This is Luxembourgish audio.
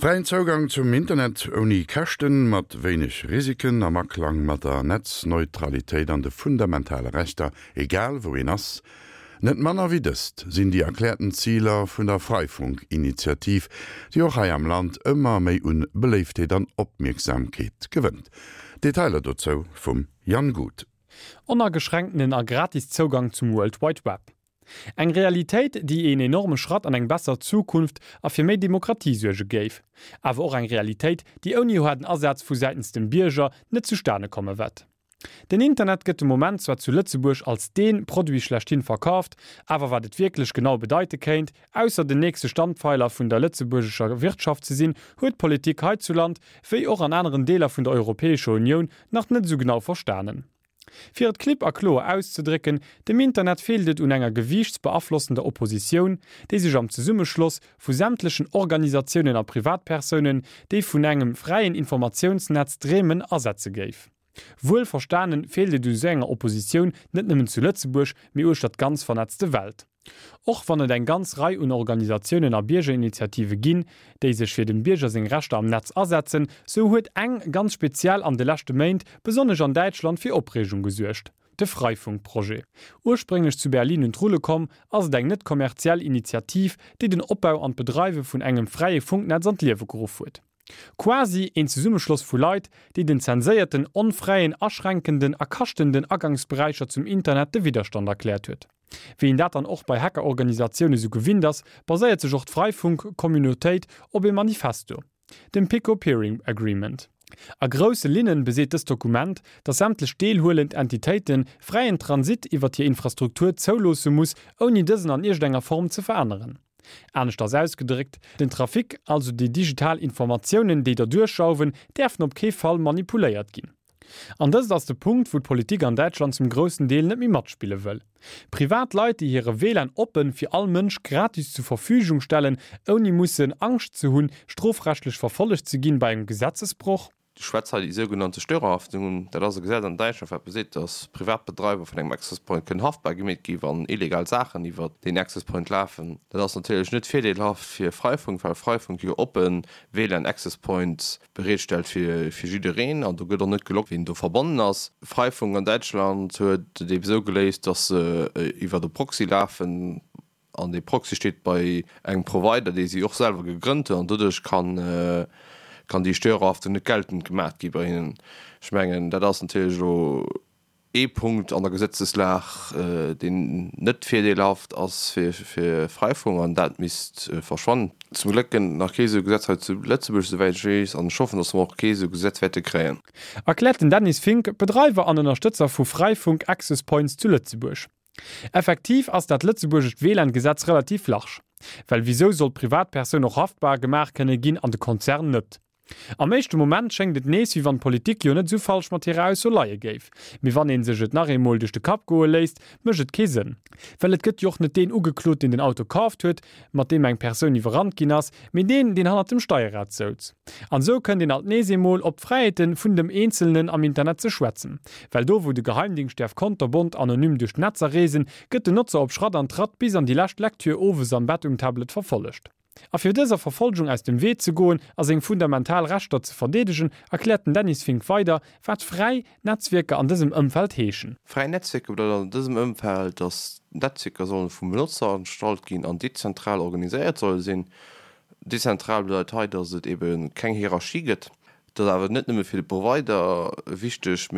Fräien Zougang zum Internet ouni Käschten, mat wéineg Risiken, am Aklang mat der Netzneutralitéit an de fundamentale Rechter, egal wou een ass. Net manner wéi dëst sinn déi erkläerten Ziler vun der Freifunk-Initiativ, déi och hei am Land ëmmer méi un Beléiftheet an Opmierksamkeet gewënnt. Detailer dozou vum Jan Guth. Onageschränktenen a gratis Zougang zum World Wide Web. Eng Realitéit, déi een enorme Schratt an eng besser Zukunft a fir méi Demokratie suerge géif. Awer och eng Realitéit, déi ouni haarden Asaz vu säitens dem Bierger net zustane komme wett. Den Internet gëtt de Moment zwar zu Lëtzebuerg als dee Produit schlechthin verkaaft, awer wat et wierklech genau bedeite kéint, ausser den nächste Standpfeiler vun der lëtzebuergescher Wirtschaft ze sinn, huet d'Politik heizuland, wéi och an aneren Deeler vun der Europäescher Unioun, nach net esou genau verstanen. Fir et klipp a kloer auszedrécken, Dem Internet feelt et un enger gewiichtsbeaflossender Oppositioun, déi sech am Zesummeschloss vu sämtlechen Organisatiounen a Privatpersounen, déi vun engem fräien Informatiounsnetz dreemen, asetze géif. Wuel verstanen, feelt et u sou enger Oppositioun net nëmmen zu Lëtzebuerg, mee uechter d'ganz vernetzte Welt. Och wann et eng ganz Rei un Organisatiounen a Biergerinitiative ginn, déi sech fir dem Bierger seng Rechter am Netz asetzen, sou huet eng ganz speziell an de leschte Méint, besonnesch an Däitschland, fir Opreegung gesuergt, de Freifunk-Projet. Ursprénglech zu Berlin un d'Rulle komm, ass et eng net kommerziell Initiativ, déi den Opbau an d'Bedreiwe vun engem fräie Funknetz an d'Liewe geruff huet. Quasi een Zesummeschloss vu Leit, déi den zenséierten, onfräien, aschränkenden a kaschtenden Agangsberäicher zum Internet de Widderstand erkläert huet. Wéi een dat dann och bei Hackerorganisatioune sou gewinnt ass, baséiert sech och d'Freifunk-Communautéit op ee Manifesto, dem Pico Peering Agreement. A grousse Linnen beseet dëst Dokument, datt sämtlech deelhuelend Entitéite fräien Transit iwwert hir Infrastruktur zouloosse muss, ouni dësen an iergendenger Form ze veränneren. Aneschters ausgedréckt, Den Trafic, also déi digital Informatiounen, déi derduerch jauwen, däerfen op kee Fall manipuléiert ginn. An dëst ass de Punkt, wou d'Politik an Däitschland zum groussen Deel net méi matspille wëll. Privat Leit, déi hire WLAN oppen fir all Mënsch gratis zur Verfügung stellen, ouni mussen Angscht ze hunn, strofrechtlech verfollegt ze ginn bei engem Gesetzesbroch. Ech schwätz hei déi sougenannte Störerhaftung un. Dat ass e Gesetz an Däitschland, wat beseet, dass Privatbedreiwer vun engem Access Point kënnen haftbar gemeet gi wann illegal Saachen iwwert deen Access Point lafen. Dat ass natierlech net virdeelhaft fir Freifunk, well Freifunk jo oppe WLAN Access Points bereetstellt fir jiddereen an do gëtt och net geloggt, wien do verbonnen ass. Freifunk an Däitschland huet et eebe sou geléist, dass se iwwert e Proxy lafen. An dee Proxy steet bei engem Provider, dee si och selwer gegrënnt hunn, an doduerch kann, kann déi Störerhaftung net geltend gemaach gi bei hinnen. Ech mengen, dat ass natierlech elo ee Punkt an der Gesetzeslag, deen net virdeelhaft ass fir, fir Freifunk, an dat misst verschwannen. Zum Gléck gëtt et nach kee esou Gesetz hei zu Lëtzebuerg, esouwäit ech weess, an ech hoffen, datt mer och kee esou Gesetz wäerte kréien. Erkläert den Dennis Fink, Bedreiwer an Ënnerstëtzer vu Freifunk Access Points zu Lëtzebuerg. Effektiv ass dat lëtzebuergescht WLAN-Gesetz relativ large. Well wisou soll d'Privatpersoun och haftbar gemaach kënne ginn an de Konzern net? Am éischte Moment schéngt et nees, wéi wann d'Politik jo net esou falsch mat hirer Ausso leie géif. Mee wann ee sech et nach eemol duerch de Kapp goe léisst, mécht et kee Sënn. Well et gëtt jo och net deen ugeklot, deen den Auto kaaft huet, mat deem eng Persoun iwwerrannt ginn ass, mee deen, deen hannert dem Steierrad souz. An esou kënnt een alt nees eemol op d'Fräiheete vun dem Eenzelnen am Internet ze schwätzen. Well do wou de Geheimdingscht däerf konterbont anonym duerch d'Netzer reesen, gëtt den Notzer op Schratt an Tratt bis an déi lescht Lektür owes am Bett um Tablet verfollegt. A fir dëser Verfolgung aus dem Wee ze goen a seng fundamental Rechter ze verdeedegen, erkläert den Dennis Fink weider, wat fräi Netzwierker an dësem Ëmfeld heeschen. Fräi Netzwierker bedeit an dësem Ëmfeld, datt d'Netzwierker sollen vum Benotzer erstallt ginn an dezentral organiséiert solle sinn. Dezentral bedeit hei, datt et ebe keng Hierarchie gëtt. Dat ass awer net nëmme fir de Provider wichteg, mee.